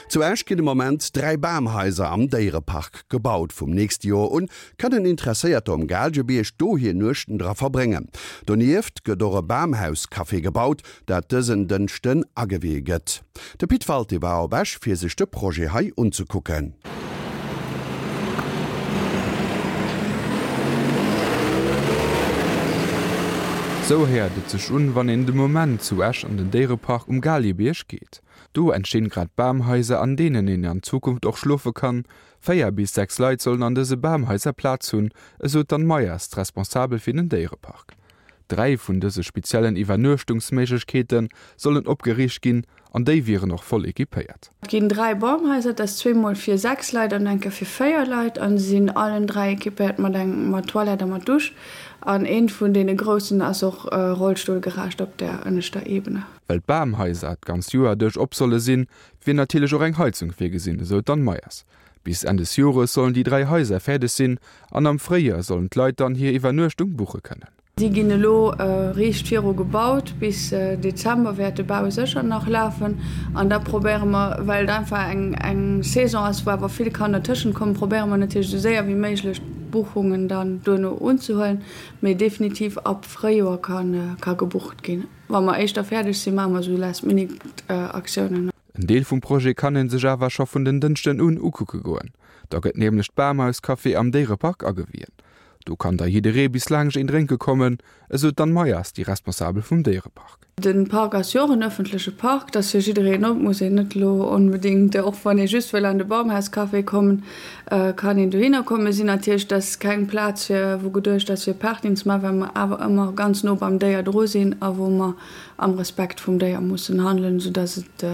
Zu Esch ginn de Moment 3 Bamhaiser am Déierepark gebaut. Vum nächste Joer un kënnen Interesséierter um Gaalgebierg do hir Nuechten dra verbréngen. Donieft gëtt och e Bamhaus-Café gebaut, dat dësen Dënschden agewee gëtt. De Pit Walté war op Esch fir sech de Projet hei unzekucken. Sou héiert et sech un, wann een de Moment zu Esch an den Déierepark um Gaalgebierg geet. Do entstinn grad Bamhaiser, an deenen een an Zukunft och schlofe kann. 4 bis 6 Leit sollen an dëse Bamhaiser Plaz hunn, esou d'Anne Meyers, d'Responsabel fir den Déierepark. 3 vun dëse speziellen Iwwernuechtungsméiglechkeete sollen opgeriicht ginn an déi wieren och voll equipéiert. Et ginn 3 Bamhaiser, dat ass zweemol fir 6 Leit an eng Kéier fir 4 Leit an se sinn allen 3 equipéiert mat eng mat Toilette a mat Dusch an eent vun deene groussen ass och rollstullgerecht op der ënneschter Ebene. Well d'Bamhaiser d'ganzt Joer duerch op solle sinn, wier natierlech och eng Heizung virgesinn, esou d'Anne Meyers. Bis Enn des Jores sollen déi 3 Haiser fäerdeg sinn an am Fréijoer sollen d'Leit dann hir Iwwernuechtung buche kënnen. Si ginn elo riicht viru gebaut. Bis Dezember wäert de Bau sécher nach lafen. An da probéiere mer, well et einfach eng Saison ass, wou awer vill kann dertëschent kommen, probéiere mer natierlech esou séier wéi méiglech d'Buchungen dann duerno unzehuelen. Mee definitiv ab Fréijoer ka gebucht ginn. Wa mer éischter fäerdeg sinn, maache mer esou Last-Minute-Aktiounen. En Deel vum Projet kann ee sech awer scho vun den Dënschden un ukucke goen. Da gëtt nämlech d'Bamhaus-Café am Déierepark agewien. Do kann da jidderee bis laangscht een drénke kommen, esou d'Anne Meyers, déi Responsabel vum Déierepark. De Park ass jo och en ëffentleche Park, dat ass fir jiddereen op, muss een net elo onbedéngt, och wann ee just wëll an de Baumhaus-Café kommen, kann een dohinner kommen. Mir sinn natierlech, dat ass keng Plaz fir, wou geduecht ass fir Partyen ze maachen, well mer awer ëmmer ganz no beim Déier dru sinn a wou mer am Respekt vum Déier mussen handelen, soudass et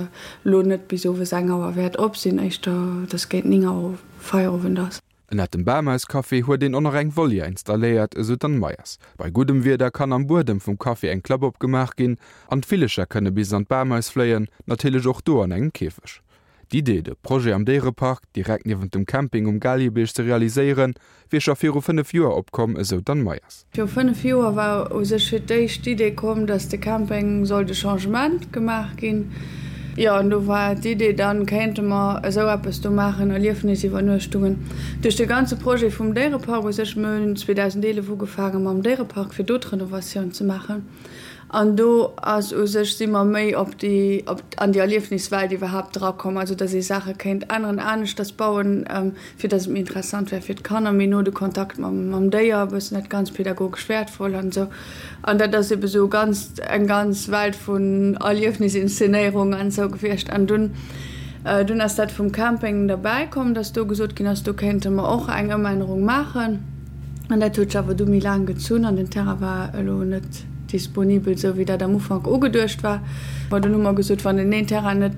elo net bis owes eng Auer wäert op sinn, éischter dass géint 9 Auer Feierowend ass. Ënnert dem Bamhaus-Café huet een och nach eng Volière installéiert, esou d'Anne Meyers. Bei guddem Wieder kann am Buedem vum Café eng Klapp opgemaach ginn an d'Villecher kënne bis an d'Bamhaus fléien, natierlech och do an engem Käfeg. D'Idee, de Projet am Déierepark, direkt niewent dem Camping um Gaaljerbierg ze realiséieren, wier scho viru 5 Joer opkomm, esou d'Anne Meyers. Viru 5 Joer war u sech fir d'éischt d'Idee komm, datt de Camping sollt e Changement gemaach ginn. Jo, an do war d'Idee, da kéinte mer esou eppes do maachen, Erliefnisiwwernuechtungen. Duerch de ganze Projet vum Déierepark u sech, mir hunn 2011 ugefaange mam Déierepark, fir do d'Renovatioun ze maachen. An do ass u sech, si mer méi op déi, op, an déi Erliefniswelt iwwerhaapt drakomm, also datt ee Saache kéint änneren, aneschters bauen, fir datt et méi interessant wär fir d'Kanner, méi no de Kontakt mam, mam Déier, e bëssen dat ganz pädagogesch wäertvoll an esou. An dat ass ebe sou ganz, eng ganz Welt vun Erliefnisinszenéierung an esou gewiescht. An dunn, dunn ass dat vum Camping derbäi komm, datt do gesot ginn ass, do kéinte mer och eng Ëmännerung maachen. An dat huet sech awer du méi laang gezunn an den Terrain war elo net disponibel, esou wéi dat am Ufank ugeduecht war. Bon, dunn hu mer gesot, wann den een Terrain net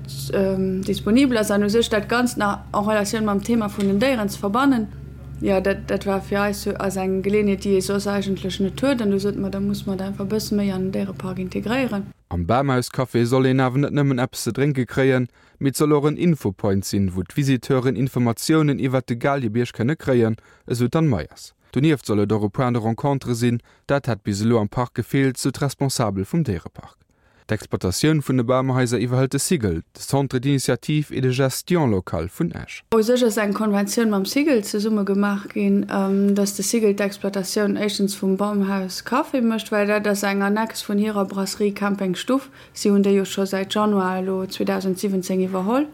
disponibel ass an u sech dat Ganzt nach en Relatioun mam Thema vun den Déieren ze verbannen, jo, dat, dat war fir eis ass eng Geleeënheet, déi ee soss eigentlech net huet. An du sote mer, da muss mer dat einfach e bësse méi an den Déierepark integréieren. Am Bamhaus-Café soll een awer net nëmmen eppes ze drénke kréien, mee et soll och en Infopoint sinn, wou d'Visiteuren Informatiounen iwwert de Gaalgebierg kënne kréien, esou d'Anne Meyers. Donieft soll et och e Point de rencontre sinn, dat hätt bis elo am Park gefeelt, sou d'Responsabel vum Déierepark. D'Exploitatioun vun de Bamhaiser iwwerhëlt de Cigl, de Centre d'initiative et de gestion locale vun Esch. U sech ass eng Konventioun mam Cigl zesumme gemaach ginn, dass de Cigl d'Exploitatioun éischtens vum Bamhaus Café mécht, well dat ass eng Annex vun hirer Brasserie Camping Stuff. Si hunn déi jo scho säit Januar elo 2017 iwwerholl.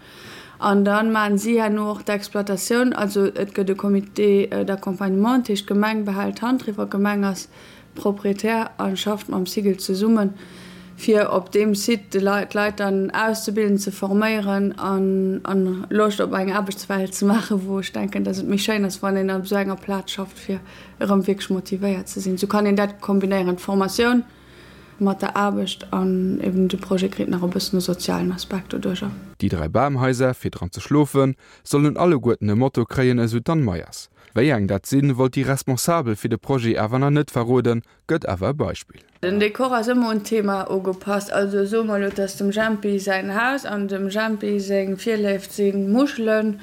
An da maachen si herno och d'Exploitatioun. Also et gëtt e Comité d'accompagnement, dat heescht d'Gemeng behält d'Hand driwwer, d'Gemeng ass Proprietär a schafft mam Cigl zesummen, fir op deem Site d'Leit dann auszebilden, ze forméieren an Loscht op eng Aarbechtswelt ze maachen, wou ech denken, datt et méi schéin ass, wann een op esou enger Plaz schafft, fir erëm wierklech motivéiert ze sinn. Esou kann een dat kombinéieren, d'Formatioun Mat der Aarbecht an eben de Projet kritt nach e bëssen e sozialen Aspekt doduercher. Déi 3 Bamhaiser, fir dran ze schlofen, sollen alleguerten e Motto kréien, esou d'Anne Meyers. Wéi eng dat sinn, wollt déi Responsabel fir de Projet awer nach net verroden, gëtt awer e Beispill. Den Dekor ass ëmmer un d'Thema ugepasst. Also soe mer elo, et ass dem Jempi säin Haus an dem Jempi seng Virléift si Muschelen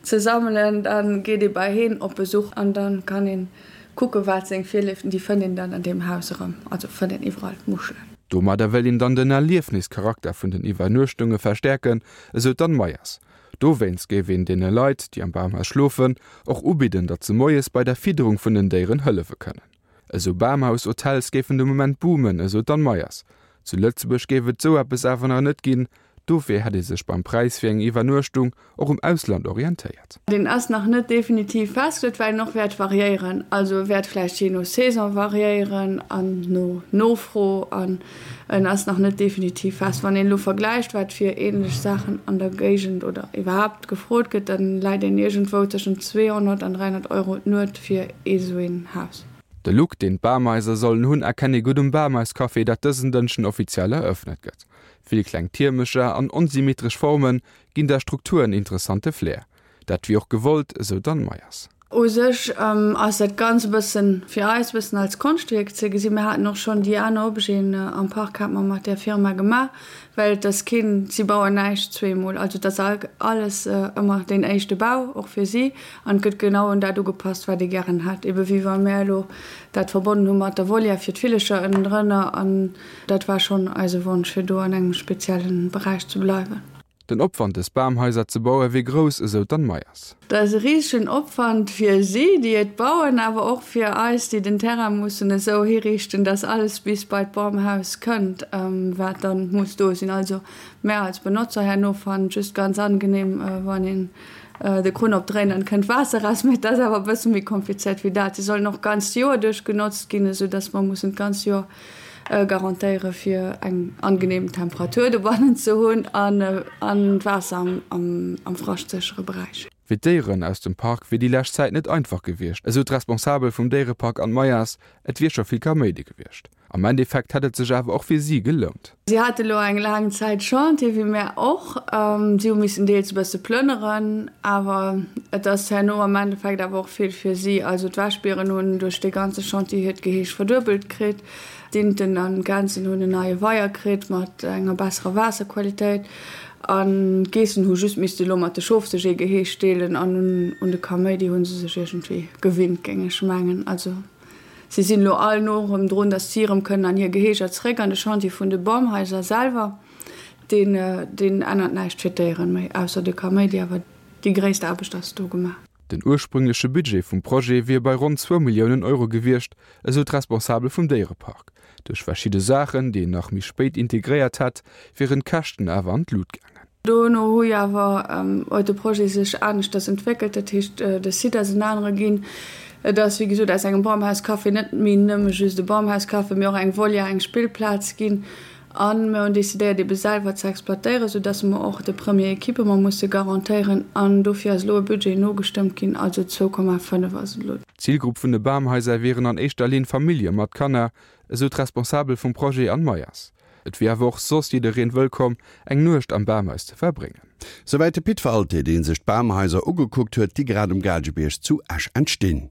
ze sammelen, da geet ee bei heen op Besuch an da kann een Kucke wat seng Virléiften, déi fënnt een dann an deem Haus erëm, also fënnt een iwwerall Muschelen. Domadder wéilt een dann den Erliefnischarakter vun den Iwwernuechtunge verstäerken, esou d'Anne Meyers. Dowéinst géif een deene Leit, déi am Bamhaus schlofen, och ubidden, datt se moies bei der Fidderung vun den Déieren hëllefe kënnen. Esou Bamhaus-Hotels géifen de Moment boomen, esou d'Anne Meyers. Zu Lëtzebuerg géif et esou eppes awer nach net ginn, dofir hätt ee sech beim Präis fir eng Iwwernuechtung och um Ausland orientéiert. Deen ass nach net definitiv festgeluecht, well en och wäert variéieren. Also e wäert vläicht jee no Saison variéieren an no Nofro an en ass nach net definitiv fest. Wann een elo vergläicht, wat fir änlech Saachen an der Géigend oder iwwerhaapt gefrot gëtt, da läit een iergendwou tëschent 200 an 300 Euro d'Nuet fir ee sou een Haus. De Look, deen d'Bamhaiser sollen hunn, erkennt ee gutt um Bamhaiscafé, dat dësen Dënschden offiziell erëffnet gëtt. Vill kleng Tiermecher an onsymmetresch Forme ginn der Struktur en interessante Flair. Dat wier och gewollt, esou d'Anne Meyers. U sech ass dat Ganzt e bëssen, fir eis, e bëssen als Konschtwierk ze gesinn. Mir haten och schonn déi aner Objeten am Park hate mer mat där Firma gemaach, well et ass keen, si bauen näischt zweemol. Also et ass alles ëmmer deen éischte Bau, och fir si. An et gëtt genau un dat ugepasst, wat ee gären hätt. Ebe wéi wa mär elo dat verbonnen hu mat der Volière fir d'Villecher ënnendrënner. An dat war schonn eise Wonsch, fir do an engem spezielle Beräich ze bleiwen. Den Opwand dës Bamhaiser ze baue wier grouss, esou d'Anne Meyers. Dat ass e risegen Opwand fir si, déi et bauen, awer och fir eis, déi den Terrain mussen esou hiriichten, dass alles bis bei d'Bamhaus kënnt, wat dann muss do sinn. Also mär als Benotzer herno fannen et just ganz angenehm, wann een de Krunn opdréint an et kënnt Waasser raus. Mee et ass awer e bësse méi komplizéiert wéi dat. Si sollen och d'ganzt Joer duerch genotzt ginn, esou dass mer mussen d'ganzt Joer garantéiere fir eng angenehm Temperatur dobannen ze hunn an d'Waasser am fraschtséchere Beräich. Fir d'Déieren aus dem Park wier déi lescht Zäit net einfach gewiescht, esou d'Responsabel vum Déierepark Anne Meyers. Et wier scho vill Kaméidi gewiescht. Am Endeffekt hätt et sech awer och fir si gelount. Si hate lo eng laang Zäit Chantier, wéi mär och. Si hu missen deels e bësse plënneren, awer et ass herno am Endeffekt awer och vill fir si. Also d'Wäschbieren hunn duerch dee ganze Chantier hiert Geheeg verduebelt kritt, d'Inten an d'Gänsen hunn en neie Weier kritt mat enger besserer Waasserqualitéit an d'Geessen hu just misste lo mat de Schof sech ee Geheeg deelen an un de Kaméidi hu se sech iergendwéi gewinnt, géing ech mengen. Also. Si sinn elo all no erëm drun, datt si erëm kënnen an hir Geheeger zeréck. An de Chantier vun de Bamhaiser selwer, deen, deen ännert näischt fir d'Déieren méi, ausser de Kaméidi. Awer déi gréisst Aarbecht ass do gemaach. Den ursprüngleche Budget vum Projet wier bei ronn zwou Milliounen Euro gewiescht, esou d'Responsabel vum Déierepark. Duerch verschidde Saachen, déi een nach méi spéit integréiert hätt, wieren d'Käschten awer an d'Lut gaangen. Dono hu jo awer huet de Projet sech aneschters entwéckelt, dat heescht de Site ass en anere ginn. Et ass wéi gesot aus engem Bamhauscafé net méi nëmme just e Bamhauscafé, mee och eng Volière, eng Spillplaz ginn. A mir hunn decidéiert ebe selwer ze exploitéieren, soudass mer och de Premier Equipement musse garantéieren. An dofir ass elo e Budget nogestëmmt ginn, also 2,5 ass et elo. D'Zilgrupp vun de Bamhaiser wieren an éischter Linn Famillje mat Kanner, esou d'Responsabel vum Projet Anne Meyers. Et wier awer och soss jiddereen wëllkomm, eng Nuecht am Bamhaus ze verbréngen. Souwäit de Pit Walté, dee sech d'Bamhaiser ugekuckt huet, déi grad um Gaalgebierg zu Esch entstinn.